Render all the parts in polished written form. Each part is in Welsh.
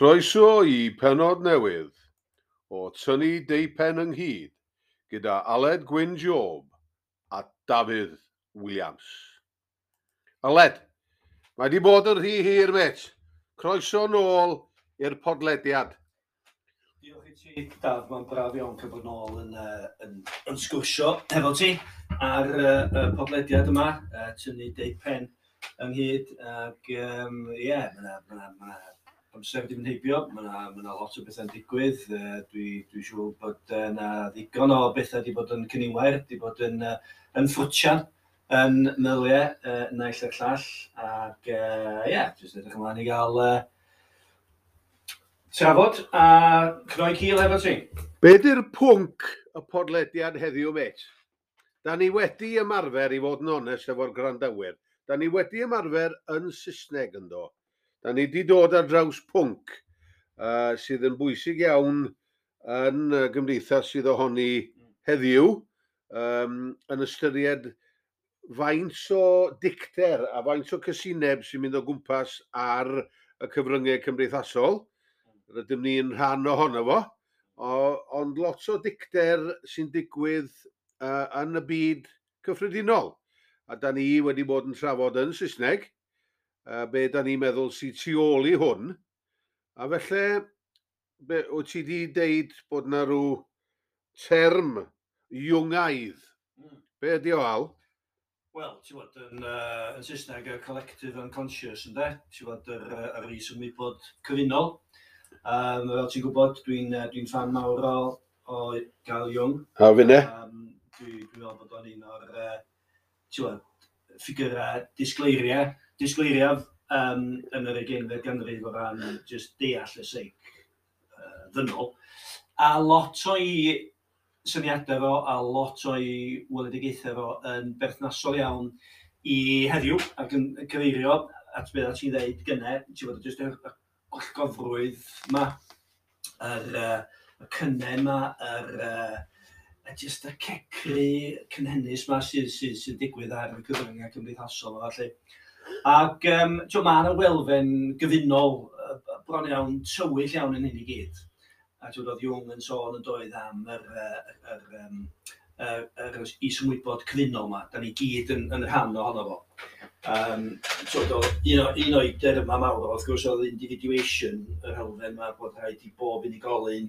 Croeso i pennod newydd o Tynnu Deupen Ynghyd gyda Aled Gwyn Job a Dafydd Williams. Aled, mae di bod yn rhy hir, mêt. Croeso nôl i'r podlediad. Diolch i ti, Daf. Mae'n braf iawn cael bod nôl yn sgwrsio hefo ti ar y podlediad yma, Tynnu Deupen Ynghyd. Ac ie, yeah, mae yna ma ma amser wedi mynd heibio, mae yna ma lot o bethau'n digwydd. Dwi siŵr bod yna ddigon o bethau wedi bod yn cyniwair, wedi bod yn ffrwtian yn meddyliau naill a'r llall. Ac ie, yeah, jyst edrych ymlaen i gael trafod a cnoi cil efo ti. Be di'r pwnc y podlediad heddiw, mêt? Da ni wedi ymarfer, i fod yn onest efo'r gwrandawyr, da ni wedi ymarfer yn Saesneg, yndo. Da ni wedi dod ar draws pwnc sydd yn bwysig iawn yn y gymdeithas sydd ohoni heddiw, yn ystyried faint o dicter a faint o cysineb sy'n mynd o gwmpas ar y cyfryngau cymdeithasol. Rydym ni'n rhan ohono fo, ond lot o dicter sy'n digwydd yn y byd cyffredinol. A da ni wedi bod yn trafod yn Saesneg, be da ni'n meddwl sy'n tu ôl i hwn. A felly, be, wyt ti wedi deud bod na rhyw term Jungaidd? Be ydi o, Al? Wel, ti'n bod, yn Saesneg, y collective unconscious, ynde? Ti'n bod, yr is-ymwybod cyfunol. Fel ti'n gwybod, dwi fan mawr o Carl Jung. A finne? Dwi meddwl bod o'n un o'r, ti'n bod, ffigurau disgleiriaf yn yr 20fed ganrif o ran just deall y seic ddynol. A lot o'i syniadau fo a lot o'i weledigaethau fo yn berthnasol iawn i heddiw ac yn cyfeirio at beth ti'n dweud gynne, ti'n bod, jyst y gwallgofrwydd ma, y cynnen ma, jyst y cecru cynhennus ma sydd digwydd ar y cyfryngau cymdeithasol a felly. Ac mae yna elfen gyfunol bron iawn tywyll iawn yn hyn i gyd. A ti'n oedd Jung yn sôn yn doedd am yr is-ymwybod cyfunol yma. Da ni gyd yn rhan ohono fo. So, un o'i derma mawr, wrth gwrs, oedd individuation, yr elfen yma bod rhaid i bob unigolyn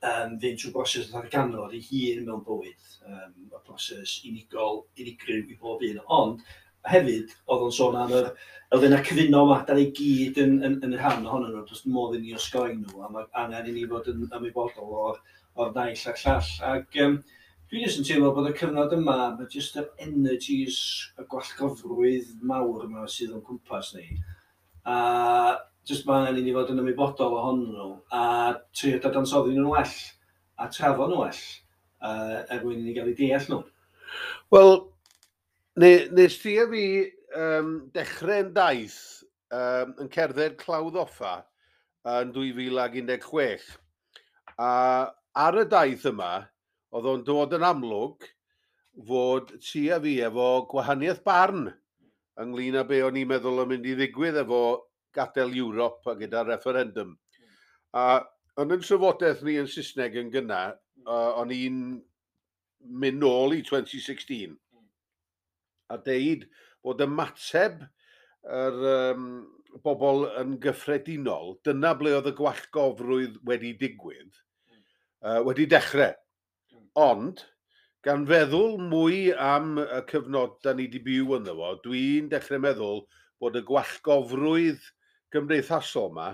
fynd trwy broses ddarganfod ei hun mewn bywyd. Y proses unigol, unigryw i bob un. Ond hefyd, oedd o'n sôn am yr elfennau cyfunol yma, da ni gyd yn rhan ohonyn nhw, does modd i ni osgoi nhw, a mae angen i ni fod yn ymwybodol o'r naill a'r llall. Ac dwi jyst yn teimlo bod y cyfnod yma, mae jyst yr energies, y gwallgofrwydd mawr yma sydd o'n cwmpas ni, a jyst mae angen i ni fod yn ymwybodol ohonyn nhw, a trio dadansoddi nhw'n well, a trafod nhw well, er mwyn i ni gael eu deall nhw. Wel, nes ti a fi dechrau'n daith yn cerdded Clawdd Offa yn 2016. A ar y daith yma, oedd o'n dod yn amlwg fod ti a fi efo gwahaniaeth barn ynglyn â be o'n i'n meddwl yn mynd i ddigwydd efo gadael Ewrop a gyda referendum. A yn yn trafodaeth ni yn Saesneg yn gynna, o'n i'n mynd nôl i 2016 a deud bod ymateb yr bobl yn gyffredinol, dyna ble oedd y gwallgofrwydd wedi digwydd, wedi dechrau. Ond, gan feddwl mwy am y cyfnod da ni wedi byw ynddo fo, dwi'n dechrau meddwl bod y gwallgofrwydd gymdeithasol yma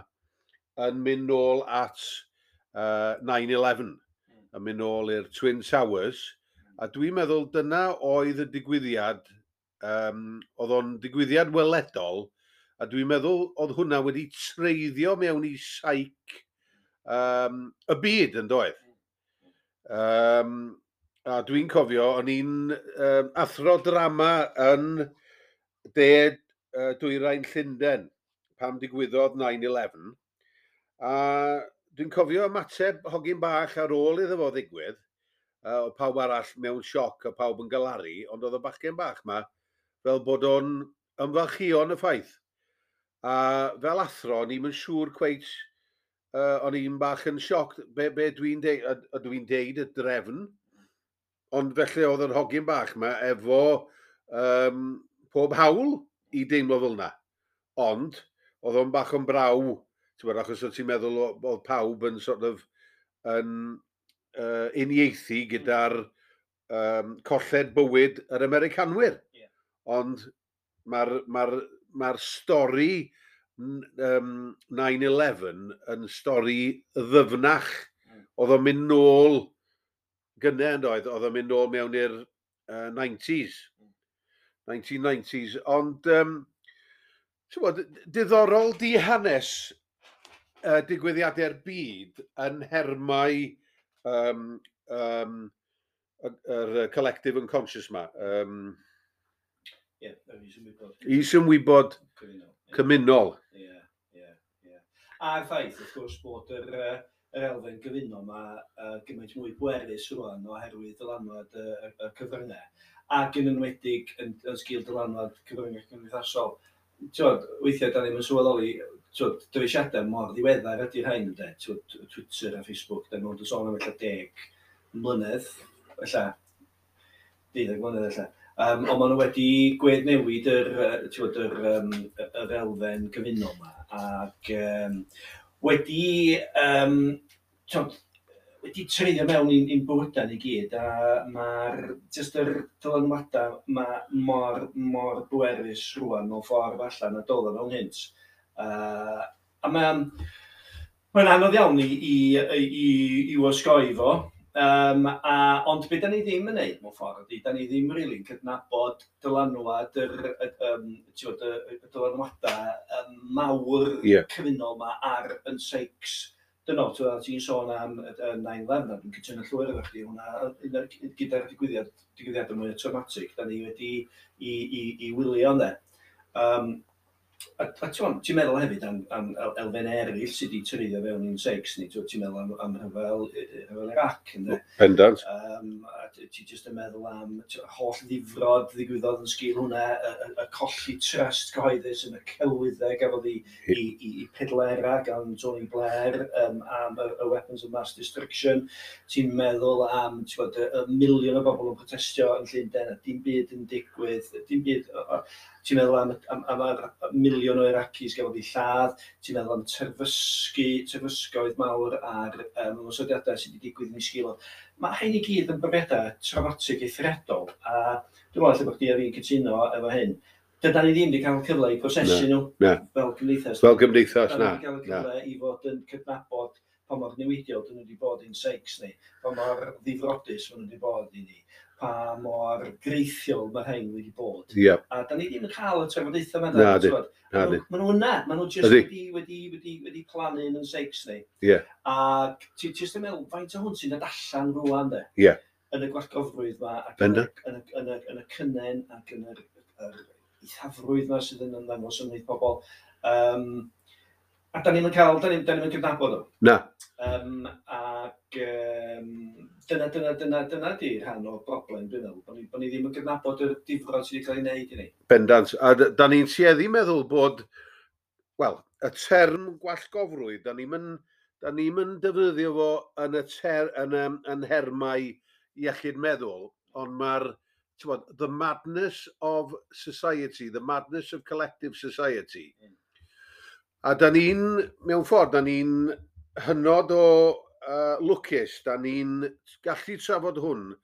yn mynd nôl at 9/11, yn mynd nôl i'r Twin Towers, a dwi'n meddwl dyna oedd y digwyddiad, oedd o'n digwyddiad weledol, a dwi'n meddwl oedd hwnna wedi treiddio mewn i seic y byd, yn doedd. A dwi'n cofio, o'n i'n athro drama yn de dwyrain Llundain pam digwyddodd 9/11. A dwi'n cofio ymateb hogyn bach ar ôl iddo fo ddigwydd, o pawb arall mewn sioc a pawb yn galaru, ond oedd y bachgen bach ma fel bod o'n ymfalchïo yn y ffaith. A fel athro, o'n i'm yn siŵr cweit O'n i'n bach yn sioc, be dwi'n deud, a dwi'n deud y drefn, ond felly oedd yr hogyn bach yma efo pob hawl i deimlo fel yna. Ond, oedd o'n bach yn braw, ti'n gwbod, achos oedd ti'n meddwl oedd pawb yn sort of yn uniaethu gyda'r colled bywyd yr Americanwyr. Ond mae'r stori 9/11 yn stori ddyfnach. Oedd o'n mynd nôl gynnau yn doedd, oedd o'n mynd nôl mewn i'r 90s. 1990s. Ond, ti'n gwbod, diddorol di hanes digwyddiadau'r byd yn nhermau yr collective unconscious ma. Ie, yr isymwybod. Isymwybod cymunol. Cymunol. Ie. A'r ffaith, wrth gwrs, bod yr elfen gyfunol yma gymaint mwy bwerus rwan oherwydd dylanwad y cyfryngau, ac yn enwedig yn sgil dylanwad cyfryngau cymdeithasol. T'wod, weithiau da ni'n sylweddoli, t'wod, dyfeisiadau mor ddiweddar ydy'r rhain, ynde? T'wod, Twitter a Facebook, da ni'n sôn am ella 10 mlynedd, ella 12 mlynedd ella. Ond maen nhw wedi gweddnewid t'wod, yr elfen gyfunol yma, ac t'wod, wedi treiddio mewn i'n bywydau ni gyd, a mae'r jyst yr dylanwadau ma mor, mor bwerus rwan mewn ffordd allan na doedd o mewn hynt. A mae'n anodd iawn i osgoi fo. Ond be da ni ddim yn neud mewn ffordd ydy, da ni ddim rili'n really cydnabod dylanwad t'wod, y dylanwadau mawr cyfunol ma ar yn seics dynol. T'wod, ti'n sôn am y 9/11, a dwi'n cytuno llwyr efo chdi, hwnna un gyda'r digwyddiadau mwy traumatic da ni wedi i wylio, ynde. A ti'n meddwl hefyd am elfen eraill sydd wedi treiddio fewn i'n seics ni, ti'n meddwl am rhyfel Iraq, ynde? Pendant. A ti jyst yn meddwl am holl ddifrod ddigwyddodd yn sgil hwnna, y colli trust cyhoeddus yn y celwyddau gafodd i pedlera gan Tony Blair am y weapons of mass destruction. Ti'n meddwl am ti'n gwbod, y miliwn o bobl yn protestio yn Llundain a dim byd yn digwydd, dim byd, ti'n meddwl am yr miliwn o Iraqis gafodd eu lladd, ti'n meddwl am terfysgoedd mawr a'r ymosodiadau sydd wedi digwydd yn ei sgil o. Mae hyn i gyd yn brofiadau traumatic eithriadol, a dwi'n meddwl lle bod chdi a fi'n cytuno efo hyn. Dydan ni ddim wedi cael cyfle i prosesu nhw Na. fel cymdeithas. Fel gymdeithas, Da na. ni wedi cael y Na. cyfle i fod yn cydnabod pa mor newidiol dyn nhw wedi bod i'n seics ni, pa mor ddifrodus maen nhw wedi bod i ni, pa mor greithiol mae rhain wedi bod. A da ni ddim yn cael y trafodaethau yma. Na, di. T'wod. Na, di. Maen nhw yna, maen nhw just Ydi. wedi plannu yn seics ni. A ti jyst yn meddwl, faint o hwn sy'n dod allan rwan, de? Yn y gwallgofrwydd yma, ac yn y cynnen, ac yn yr eithafrwydd yma sydd yn ymddangos ymhlith pobl. A da ni'n cydnabod o. Na. Ac dyna di rhan o'r broblem, dwi'n meddwl, bod ni ddim yn cydnabod yr difrod sydd wedi cael ei wneud i ni. Bendant. A da ni'n tueddu meddwl bod, wel, y term gwallgofrwydd, da ni'm yn defnyddio fo yn nhermau iechyd meddwl, ond mae'r, t'wod, the madness of society, the madness of collective society. A da ni'n, mewn ffordd, da ni'n hynod o lwcus, da ni'n gallu trafod hwn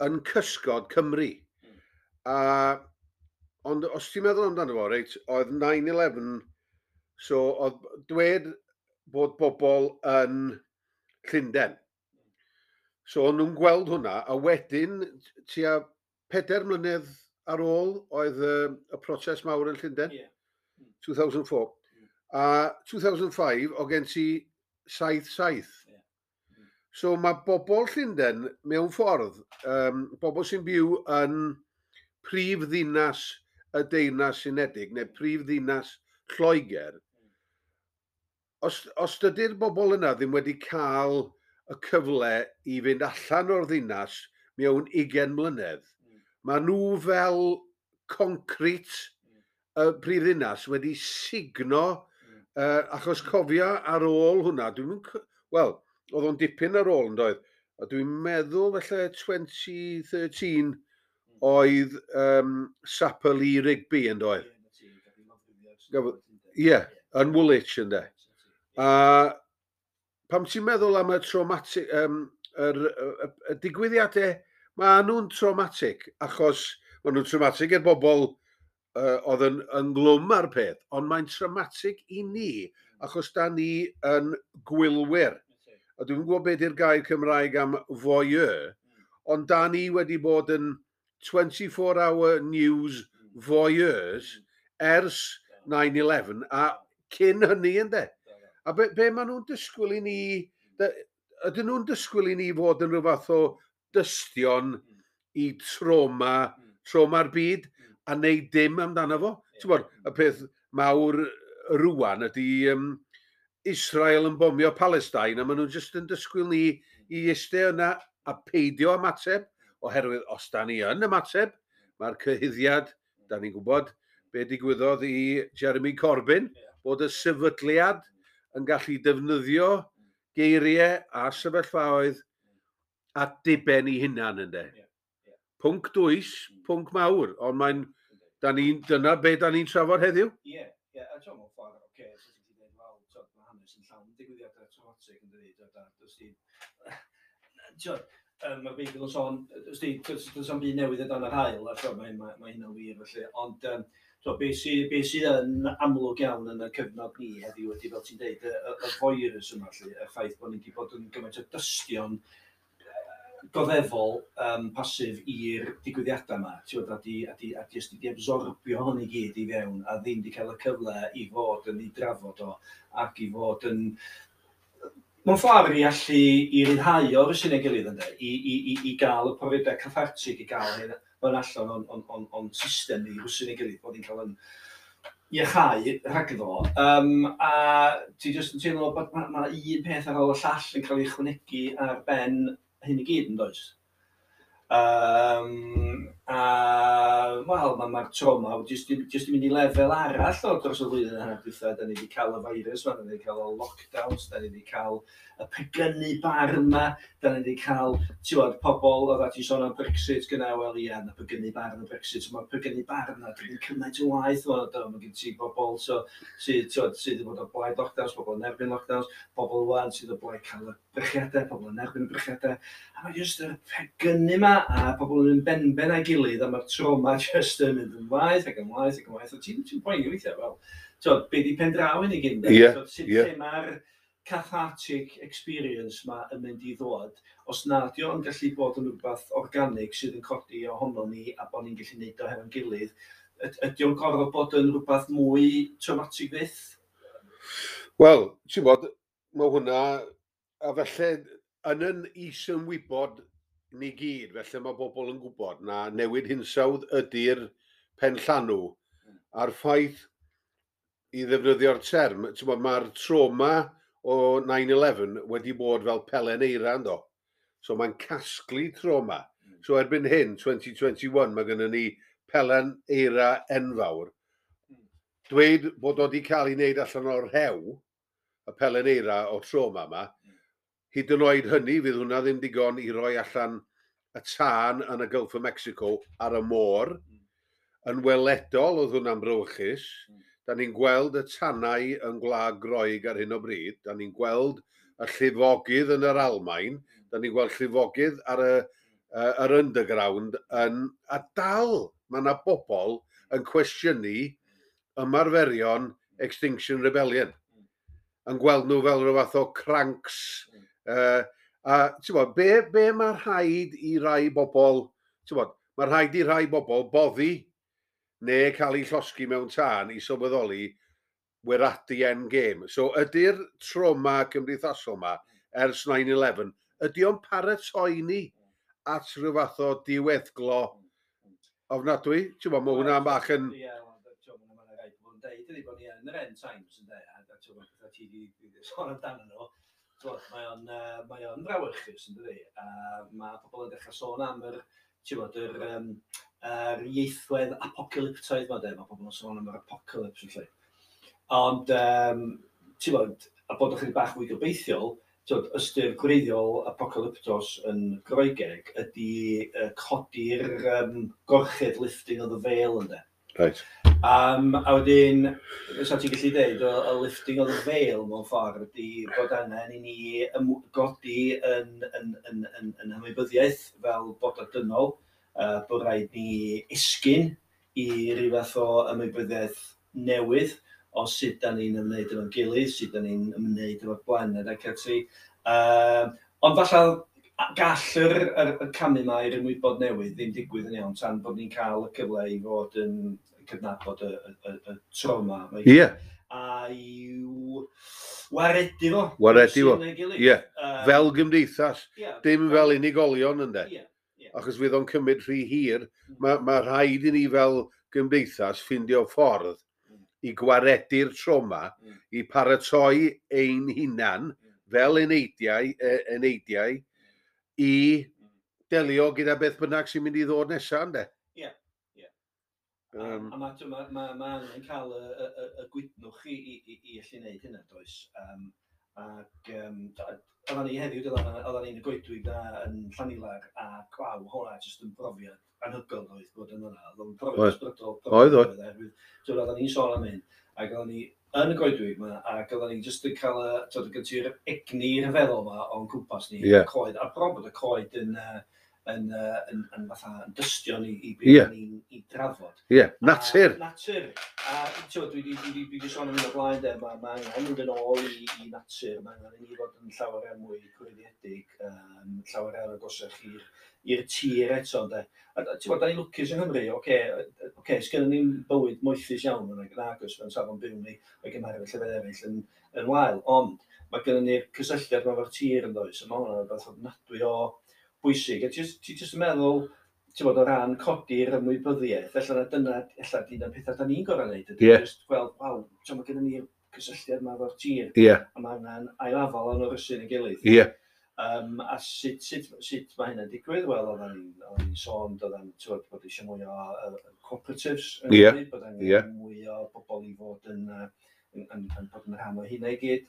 yn cysgod Cymru. Ond os ti'n meddwl amdano fo, reit, oedd 9/11, so oedd dwed bod bobl yn Llundain. So o'n nhw'n gweld hwnna, a wedyn tua 4 mlynedd ar ôl oedd y protest mawr yn Llundain, 2004. A 2005, o gen ti 7-7. So mae bobl Llundain mewn ffordd, bobl sy'n byw yn prif ddinas y Deyrnas Unedig, neu prif ddinas Lloegr, os dydy'r bobl yna ddim wedi cael y cyfle i fynd allan o'r ddinas mewn 20 mlynedd, mae nhw fel concrit y prif ddinas wedi sugno. Achos cofia ar ôl hwnna, dwi'n wel, oedd o'n dipyn ar ôl yn doedd. A dwi'n meddwl felly 2013 oedd Sapper Lee Rigby yn doedd. Ie, yn Woolwich yn de. A pam ti'n meddwl am y traumatic, y digwyddiadau, mae nhw'n traumatic, achos maen nhw'n traumatic i'r bobl oedd yn ynglwm ar peth, ond mae'n traumatic i ni, achos da ni yn gwylwyr. A dwi'n gwybod beth yw'r gair Cymraeg am voyeur, ond da ni wedi bod yn 24-hour news voyeurs ers 9/11 a cyn hynny ynddo. A be maen nhw'n disgwyl i ni, ydyn nhw'n disgwyl i ni fod yn rhyw fath o dystion i trauma'r byd, a neud dim amdano fo? Ti'n bod, y peth mawr rwan ydy Israel yn bomio Palestine, a maen nhw'n just yn disgwyl ni i eistedd yna a peidio ymateb, oherwydd os da ni yn ymateb, mae'r cyhuddiad, da ni'n gwybod be digwyddodd i Jeremy Corbyn, bod y sefydliad yn gallu defnyddio geiriau a sefyllfaoedd at diben i hunan ynddo. Pwnc dwys, pwnc mawr, ond mae'n, dyna be da ni'n trafod heddiw. Ie, ie, a ti'n mewn ffordd, oce, so ti'n dweud, wel, t'od, mae hanes yn llawn digwyddiadau traumatic yn dydi, t'od, a does di, t'od, mae'r Beibl yn sôn, does di, does am byd newydd o dan yr haul, a t'od, mae hynna'n wir, felly, ond, t'od, be sydd yn amlwg iawn yn y cyfnod ni heddiw ydy, fel ti'n deud, y voyeurism yma, felly, y ffaith bod ni wedi bod yn gymaint o dystion goddefol pasif i'r digwyddiadau yma, ti'n gwbod, a di jyst di absorbio hwn i gyd i fewn, a ddim di cael y cyfle i fod yn ei drafod o, ac i fod yn, mewn ffordd i allu i ryddhau o'r sy'n ei gilydd ynde, i gael y profiadau cathartig, i gael hyn allan o'n system ni, rwsyn ei gilydd, bod ni'n cael yn iachau rhagddo. A ti jyst yn teimlo bod ma un peth ar ôl y llall yn cael ei ychwanegu ar ben hyn i gyd, yn does? A, wel, mae'r trauma jyst i mynd i lefel arall o dros y flwyddyn yna dwytha. Da ni wedi cael y virus ma, da ni wedi cael y lockdowns, da ni wedi cael y pegynu barn ma, da ni wedi cael, ti'n gwbod, pobl, oedd ti'n sôn am Brexit gyna, wel ia, na pegynu barn y Brexit, mae'r pegynu barn na, dwi'n cymaint o waith, mae gen ti bobl so, sydd, ti'n gwbod, sydd yn bod o blaid lockdowns, pobl yn erbyn lockdowns, pobl wan sydd o blaid cael y brechiadau, pobl yn erbyn y brechiadau, a mae jyst yr pegynu ma, a pobl yn mynd benben a'i gilydd, a mae'r trauma jyst yn mynd yn waeth ac yn waeth ac yn waeth, a ti'n poeni weithiau, wel, ti'n be di pen draw i ni gyd, sut lle mae'r cathartic experience ma yn mynd i ddod, os nad yw o'n gallu bod yn rhywbeth organic sydd yn codi ohono ni a bod ni'n gallu neud o hefo'n gilydd, ydy o'n gorfod bod yn rhywbeth mwy traumatic fyth? Wel, ti'n bod, mae hwnna, a felly yn is-ymwybod ni gyd, felly mae bobl yn gwybod na newid hinsawdd ydy'r penllanw, a'r ffaith i ddefnyddio'r term, ti'n bod, mae'r trauma o 9/11 wedi bod fel pelen eira ynddo. So mae'n casglu trauma. So erbyn hyn, 2021, mae gennym ni pelen eira enfawr. Dweud bod o wedi cael ei wneud allan o'r rhew, y pelen eira o trauma yma, hyd yn oed hynny, fydd hwnna ddim digon i roi allan y tân yn y Gulf of Mexico ar y môr. Yn weledol oedd hwnna'n brawychus. Da ni'n gweld y tanau yn Gwlad Groeg ar hyn o bryd. Da ni'n gweld y llifogydd yn yr Almaen. Da ni'n gweld llifogydd ar yr underground yn, a dal mae yna bobl yn cwestiynu ymarferion Extinction Rebellion. Yn gweld nhw fel rhyw fath o cranks. A ti'n bod, be mae rhaid i rai bobl, ti'n bod, mae rhaid i rai bobl boddi neu cael eu llosgi mewn tân i sylweddoli we're at the end game. So ydy'r trauma cymdeithasol yma ers 9/11, ydy o'n paratoi ni at rhyw fath o diweddglo ofnadwy? Ti'n bod, mae hwnna'n bach yn... Ie, ti'n bod, mae'n rhaid bod yn deud, ydy bod ni yn yr end times yn deud, a ti'n bod, pethau ti wedi sôn amdano nhw, ti'n bod, mae o'n frawychus yn dydi, a mae pobl yn dechrau sôn am yr, ti'n bod, yr ieithwedd apocalyptaidd ma de, mae pobl yn sôn am yr apocalypse felly. Ond, ti'n bod, a bod ychydig bach fwy gobeithiol, t'wod, ystyr gwreiddiol apocalyptos yn Groegeg ydy codi'r gorchudd, lifting of the veil, ynde. A wedyn, sa ti'n gallu dweud, y lifting of the veil mewn ffordd ydy bod angen i ni godi yn ymwybyddiaeth fel bod dynol, bod rhaid ni esgyn i ryw fath o ymwybyddiaeth newydd o sut da ni'n ymwneud efo'n gilydd, sut da ni'n ymwneud efo'r blaned ac ati. Ond falle gall y camu yma i'r ymwybod newydd ddim digwydd yn iawn tan bod ni'n cael y cyfle i fod yn cydnabod y trauma. A i'w waredu fo. Waredu fo, ie. Fel gymdeithas, dim fel unigolion, ynde. Achos fydd o'n cymryd rhy hir. Mae rhaid i ni fel gymdeithas ffindio ffordd i gwaredu'r trauma, i paratoi ein hunan fel eneidiau i delio gyda beth bynnag sy'n mynd i ddod nesaf, ynde? Ie. A ma angen cael y gwydnwch i allu gwneud hynna, does? Ac oedden ni heddiw, oedden ni'n y goedwig na yn Llanilar, a gwaw, hwnna jyst yn brofiad anhygoel oedd bod yn yna. Oedd o'n brofiad ysbrydol. Oedd. Oherwydd, t'wod, oedden ni'n sôn am hyn, ac oedden ni yn y goedwig yma, ac oedden ni jyst yn cael y, t'wod, gen ti'r egni rhyfeddol yma o'n cwmpas ni, y coed, a bron bod y coed yn fatha yn dystion i beth ni'n i drafod. Ie, natur. A, natur. A t'wod, dwi 'di sôn am hyn o blaen, de, ma angen mynd yn ôl i natur, mae angen i ni fod yn llawer iawn mwy gwreiddiedig, llawer iawn agosach i'r tir eto, ynde. A ti'n bod, da ni'n lwcus yng Nghymru, oce, sgynnon ni'n bywyd moethus iawn yn agos mewn safon byw ni, o'i gymharu efo llefydd eraill yn wael, ond mae gynnon ni'r cysylltiad yma efo'r tir yn does, a mae hwnna'n rhywbeth ofnadwy o bwysig. A ti jyst yn meddwl, ti'n bod, o ran codi'r ymwybyddiaeth, ella na dyna, ella dyna'r pethau da ni'n gorau wneud, ydy jyst gweld, waw, ti'n, mae gynnon ni'r cysylltiad yma efo'r tir, a mae angen ailafal o'n orysu'n ei gilydd. A sut mae hynna'n digwydd? Wel, oedden ni'n sôn, oedden, ti'n bod eisiau mwy o cooperatives yn Cymru, bod angen mwy o bobl i fod yn bod yn rhan o hynna i gyd.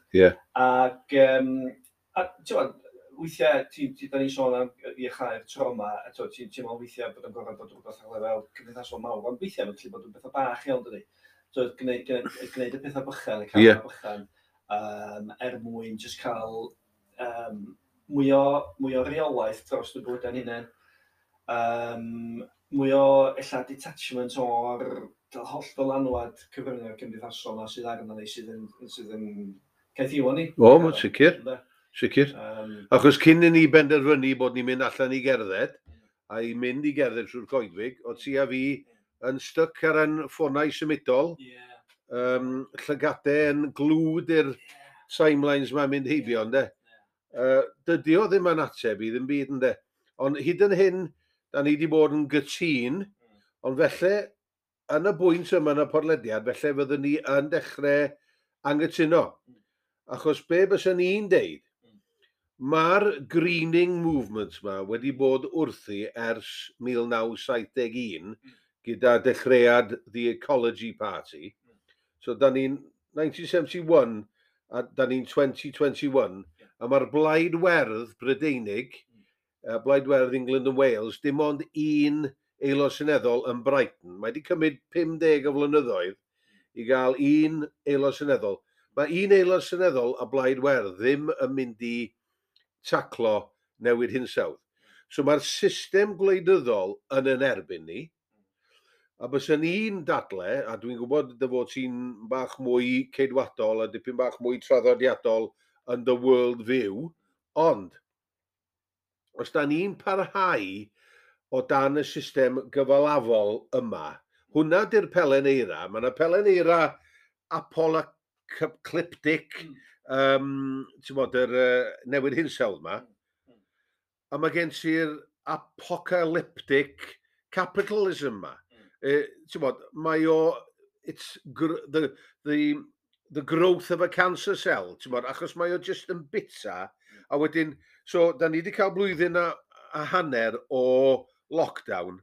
Ac, a ti'n bod, weithiau, da ni'n sôn am iachau'r trauma, a ti'n ti'n meddwl weithiau bod yn gorfod bod rhywbeth ar lefel cymdeithasol mawr, ond weithiau mae'n gallu bod yn bethau bach iawn, dydi? So, gwneud y pethau bychan, y camau bychan, er mwyn jyst cael mwy o reolaeth dros y bywydau'n hunain. Mwy o ella detachment o'r holl ddylanwad cyfryngau cymdeithasol yma sydd arno ni, sydd yn caethiwo ni. O, mae'n sicr. Ynde? Sicr. Achos cyn i ni benderfynu bod ni'n mynd allan i gerdded, a i mynd i gerdded trwy'r coedwig, o ti a fi yn styc ar ein ffonau symudol, llygadau yn glued i'r timelines mae'n mynd heibio, ynde? Dydy o ddim yn ateb i ddim byd, ynde? Ond hyd yn hyn, da ni wedi bod yn gytûn, ond felly, yn y bwynt yma yn y podlediad, felly fyddwn ni yn dechrau angytuno. Achos be bysen ni'n deud, mae'r greening movement yma wedi bod wrthi ers 1971 gyda dechreuad The Ecology Party. So da ni'n 1971 a da ni'n 2021 a mae'r Blaid Werdd Brydeinig, Blaid Werdd England and Wales, dim ond un aelod seneddol yn Brighton. Mae wedi cymryd 50 o flynyddoedd i gael un aelod seneddol. Mae un aelod seneddol a Blaid Werdd ddim yn mynd i taclo newid hinsawdd. So mae'r system gwleidyddol yn yn erbyn ni, a bysen ni'n dadle, a dwi'n gwybod dy fod ti'n bach mwy ceidwadol a dipyn bach mwy traddodiadol yn the world view, ond os da ni'n parhau o dan y system gyfalafol yma, hwnna di'r pelen eira. Mae yna pelen eira apocalyptic, ti'n bod, yr newid hinsawdd yma, a mae gen ti'r apocalyptic capitalism yma. Ti'n bod, mae o, it's the growth of a cancer cell, ti'n bod, achos mae o just yn bita, a wedyn, so, da ni wedi cael blwyddyn a hanner o lockdown,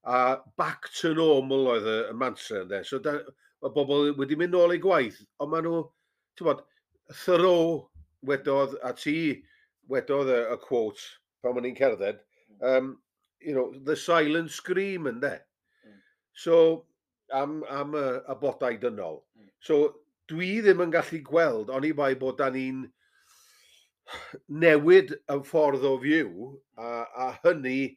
a back to normal oedd y mantra, ynde. So, da, Mae bobl wedi mynd nôl i gwaith, ond maen nhw, ti'n bod, Thoreau wedodd, a ti wedodd y quote pan o'n i'n cerdded, "the silent scream", ynde? So, am y bodau dynol. So, dwi ddim yn gallu gweld, oni bai bod da ni'n newid y ffordd o fyw, a hynny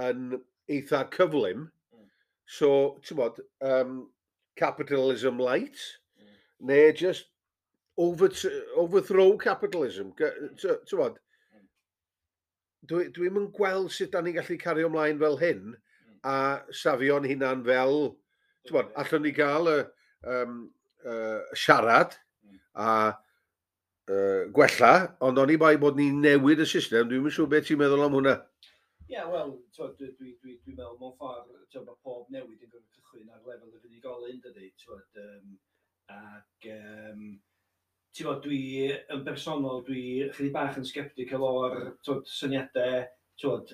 yn eitha cyflym. So, ti'n bod, capitalism light, neu just overthrow capitalism. Ti'n bod, dwi'm yn gweld sut da ni'n gallu cario ymlaen fel hyn a safio'n hunan fel, ti'n bod, allwn ni gael y siarad a gwella, ond oni bai bod ni'n newid y system, dwi'm yn siŵr beth ti'n meddwl am hwnna. Ie, yeah, wel, dwi meddwl mewn ffordd, twod, mae pob newid yn gorfod cychwyn ar lefel yr unigolyn, dydy, twod, ac, ti'n bod, dwi yn bersonol, dwi chydig bach yn sceptical o'r, twod, syniadau, twod,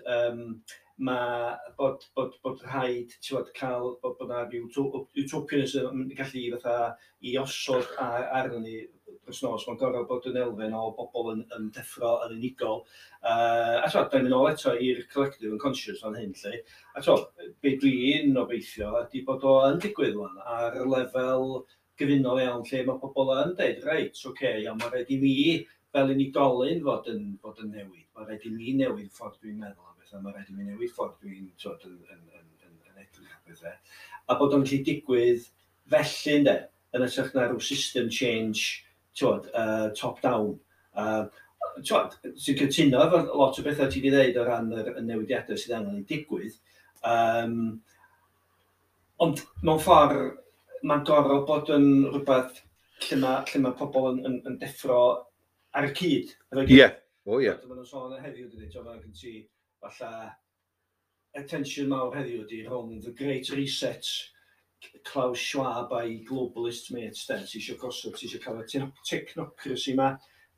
mae bod rhaid, ti'n bod, cael, bod na rhyw utopianism yn gallu fatha i osod arno ni dros nos. Mae'n gorfod bod yn elfen o bobl yn deffro yn unigol. A ti'n da ni'n mynd ôl eto i'r collective unconscious fan hyn, lle. A ti'n be dwi'n obeithio ydy bod o yn digwydd wan ar lefel gyfunol iawn lle mae pobl yn deud, "Reit, oce, okay, iawn, mae rhaid i mi fel unigolyn fod yn newid. Mae rhaid i mi newid ffordd dwi'n meddwl am bethau, mae rhaid i mi newid ffordd dwi'n, twod, yn edrych ar bethau." A bod o'n gallu digwydd felly, ynde, yn hytrach na rhyw system change, twod, top down. Twod, sy'n cytuno efo lot o bethau ti wedi dweud o ran y newidiadau sydd angen i digwydd. Ond mewn ffordd, mae'n gorfod bod yn rhywbeth lle mae pobl yn deffro ar y cyd efo'i gilydd. Ie, o ie. Maen nhw'n sôn heddiw, dydy, ti'n meddwl, gen ti falle attention mawr heddiw ydy rhwng the Great Reset, Klaus Schwab a'i globalist mates, de, ti eisiau gosod, ti eisiau cael y technocracy ma,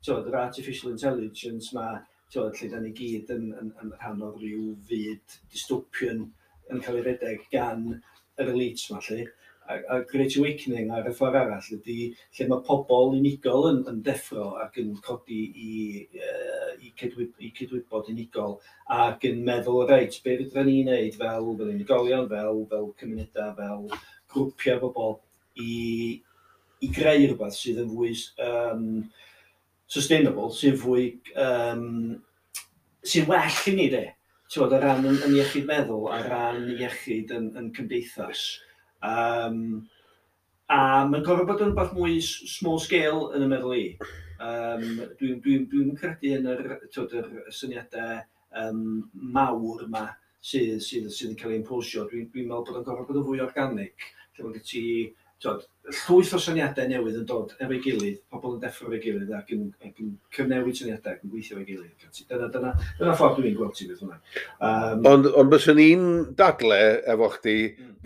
ti'n yr artificial intelligence ma, ti'n lle da ni gyd yn rhan o ryw fyd dystopian yn cael ei redeg gan yr elites ma, lle. A Great Awakening ar y ffordd arall ydy lle mae pobl unigol yn deffro ac yn codi i cydwybod unigol ac yn meddwl, reit, be fydra ni wneud fel unigolion, fel cymunedau, fel grwpiau bobl i greu rhywbeth sydd yn fwy sustainable, sydd fwy, sy'n well i ni, de. Ti'n bod, o ran yn iechyd meddwl, ar ran iechyd yn cymdeithas. A mae'n gorfod bod yn rhywbeth mwy small scale yn y meddwl i. Dwi'n credu yn yr, twod, yr syniadau mawr yma sydd yn cael ei imposio. Dwi meddwl bod o'n gorfod bod yn fwy organic, lle mae gen ti, twod, llwyth o syniadau newydd yn dod efo'i gilydd, pobl yn deffro efo'i gilydd ac yn cyfnewid syniadau ac yn gweithio efo'i gilydd. Ac ati. Dyna ffordd dwi'n gweld ti beth hwnna. Ond byswn i'n dadle efo chdi,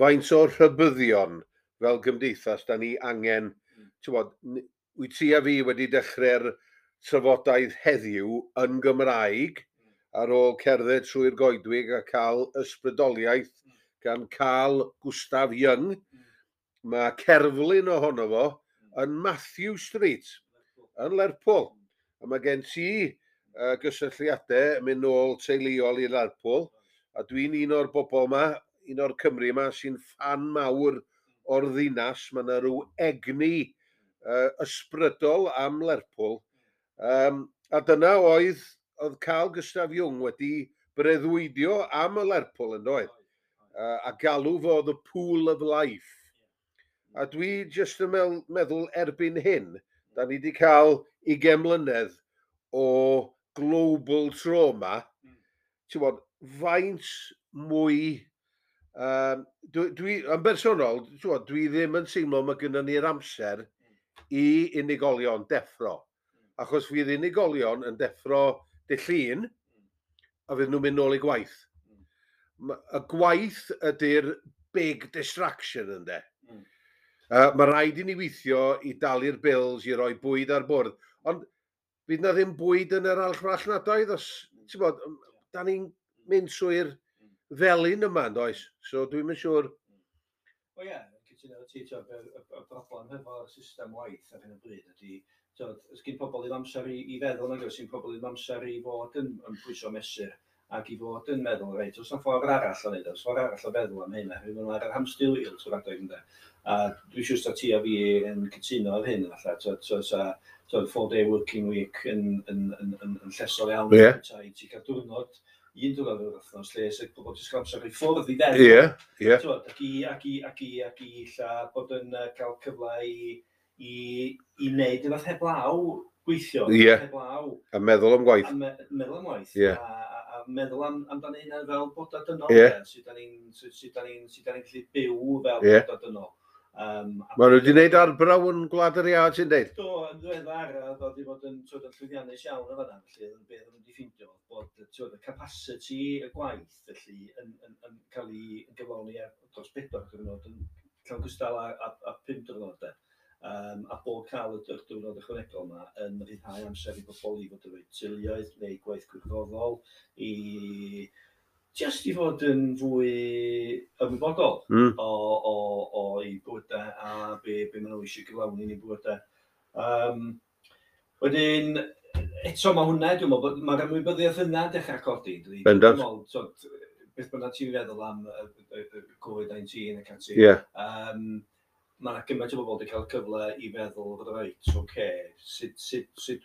faint o'r rhybuddion fel gymdeithas da ni angen, ti'n bod, wyt ti a fi wedi dechrau'r trafodaeth heddiw yn Gymraeg ar ôl cerdded trwy'r goedwig a cael ysbrydoliaeth gan Carl Gustav Jung. Mae cerflun ohono fo yn Matthew Street yn Lerpwl. A mae gen ti gysylltiadau yn mynd nôl teuluol i Lerpwl. A dwi'n un o'r bobl yma, un o'r Cymru yma, sy'n ffan mawr o'r ddinas. Mae yna rhyw egni ysbrydol am Lerpwl. A dyna oedd Carl Gustav Jung wedi breuddwydio am y Lerpwl yn doedd. A galw fo the pool of life. A dwi jyst yn meddwl erbyn hyn, da ni wedi cael 20 mlynedd o global trauma. Ti'n bod, faint mwy. Dwi, yn bersonol, ti'n bod, dwi ddim yn teimlo mae gennym ni'r amser i unigolion deffro. Achos fydd unigolion yn deffro dy Llun, a fydd nhw'n mynd nôl i gwaith. Y gwaith ydy'r big distraction, ynde. Mae rhaid i ni weithio i dalu'r bills, i roi bwyd ar bwrdd. Ond fydd na ddim bwyd yn yr archfarchnadoedd os, ti'n bod, da ni'n mynd trwy'r felin yma, yn does? So dwi'm yn siŵr. O ie, cytuno efo ti, t'od, y broblem hefo'r system waith ar hyn o bryd ydy, t'od, os gyn pobl ddim amser i feddwl, nag oes, gyn pobl ddim amser i fod yn pwyso mesur ac i fod yn meddwl, reit, oes 'na ffordd arall o wneud, oes ffordd arall o feddwl am hyn, oherwydd maen nhw ar yr hamster wheel trwy'r adeg, ynde. A dwi'n siŵr sa ti a fi yn cytuno ar hyn, falle, t'od, so, sa, t'od, 4-day working week yn llesol iawn. I ti cael diwrnod, un diwrnod yr wythnos, lle sydd pobl jyst cael amser i ffwrdd i feddwl. Ie, ie. T'wod, ac i ella bod yn cael cyfle i wneud rhywbeth heblaw gweithio. Heblaw. A meddwl am gwaith. A meddwl am waith. A meddwl amdano hynna fel bodau dynol. Sut da ni'n gallu byw fel bodau dynol. Maen nhw wedi gwneud arbrawf yn Gwlad yr Iâ, ti'n deud? Do, yn ddiweddar, a ddod i fod yn, t'wod, yn llwyddiannus iawn yn fan'na, felly oedd yn beth o'n nhw wedi ffeindio, bod, t'wod, y capacity y gwaith, felly, yn cael ei gyflawni ar dros 4 diwrnod yn llawn gystal â 5 diwrnod, de. A bod cael y diwrnod ychwanegol yma yn rhyddhau amser i bobl i fod efo'u teuluoedd neu gwaith gwirfoddol, i just i fod yn fwy ymwybodol o'i bywydau a be maen nhw eisiau gyflawni yn eu bywydau. Wedyn, eto mae hwnna, dwi'n meddwl, bod mae'r ymwybyddiaeth yna dechrau codi. Dydi? Bendant. Dwi'n meddwl, t'wod, beth bynnag ti'n feddwl am y Covid-19 ac ati, mae yna gymaint o bobl wedi cael cyfle i feddwl, reit, oce, sut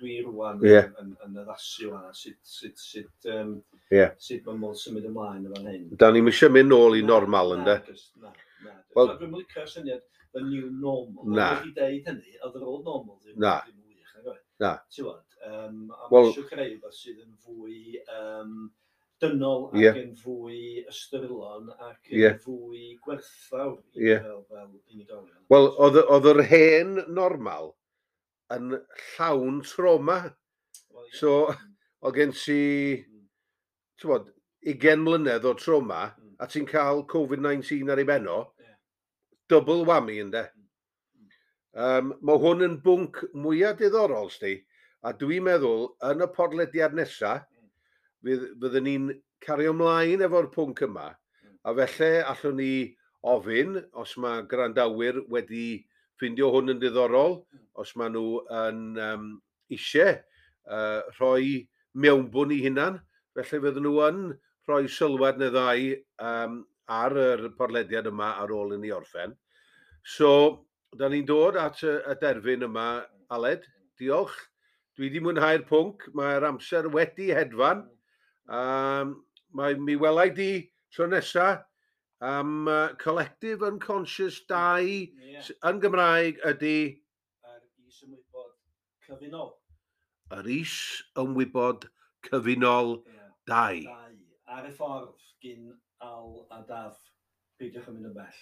dwi rwan yn addasu hwnna, sut mae modd symud ymlaen yn fan hyn. Da ni'n eisiau mynd nôl i normal, ynde? Na, na. Wel- Wel, dwi'n licio'r syniad the new normal. Na. Wedi deud hynny, oedd yr old normal ddim, Na. ddim yn wych, nag oedd? Na. Ti'n gwbod, a Wel- mae eisiau creu rhywbeth sydd yn fwy dynol ac yn fwy ystyrlon ac yn fwy gwerthfawr i fel unigolion. Wel, oedd yr hen normal yn llawn trauma. Wel, ie. So, oedd gen ti, ti'n bod, 20 mlynedd o trauma, a ti'n cael Covid-19 ar ei ben o, double whammy, ynde. Mae hwn yn bwnc mwyaf diddorol, sti, a dwi'n meddwl, yn y podlediad nesaf, fyddwn ni'n cario ymlaen efo'r pwnc yma, a felly allwn ni ofyn, os mae gwrandawyr wedi ffindio hwn yn diddorol, os maen nhw yn eisiau rhoi mewnbwn i hunan, felly fydden nhw yn rhoi sylwad neu ddau ar yr podlediad yma ar ôl i ni orffen. So, da ni'n dod at y derfyn yma, Aled. Diolch. Dwi wedi mwynhau'r pwnc. Mae'r amser wedi hedfan. Mae mi welai di tro nesa am Collective Unconscious 2 yn Gymraeg ydy Yr is-ymwybod cyfunol. Yr is-ymwybod cyfunol 2. 2. Ar y ffordd gyn Al a Daf. Peidiwch yn mynd yn bell.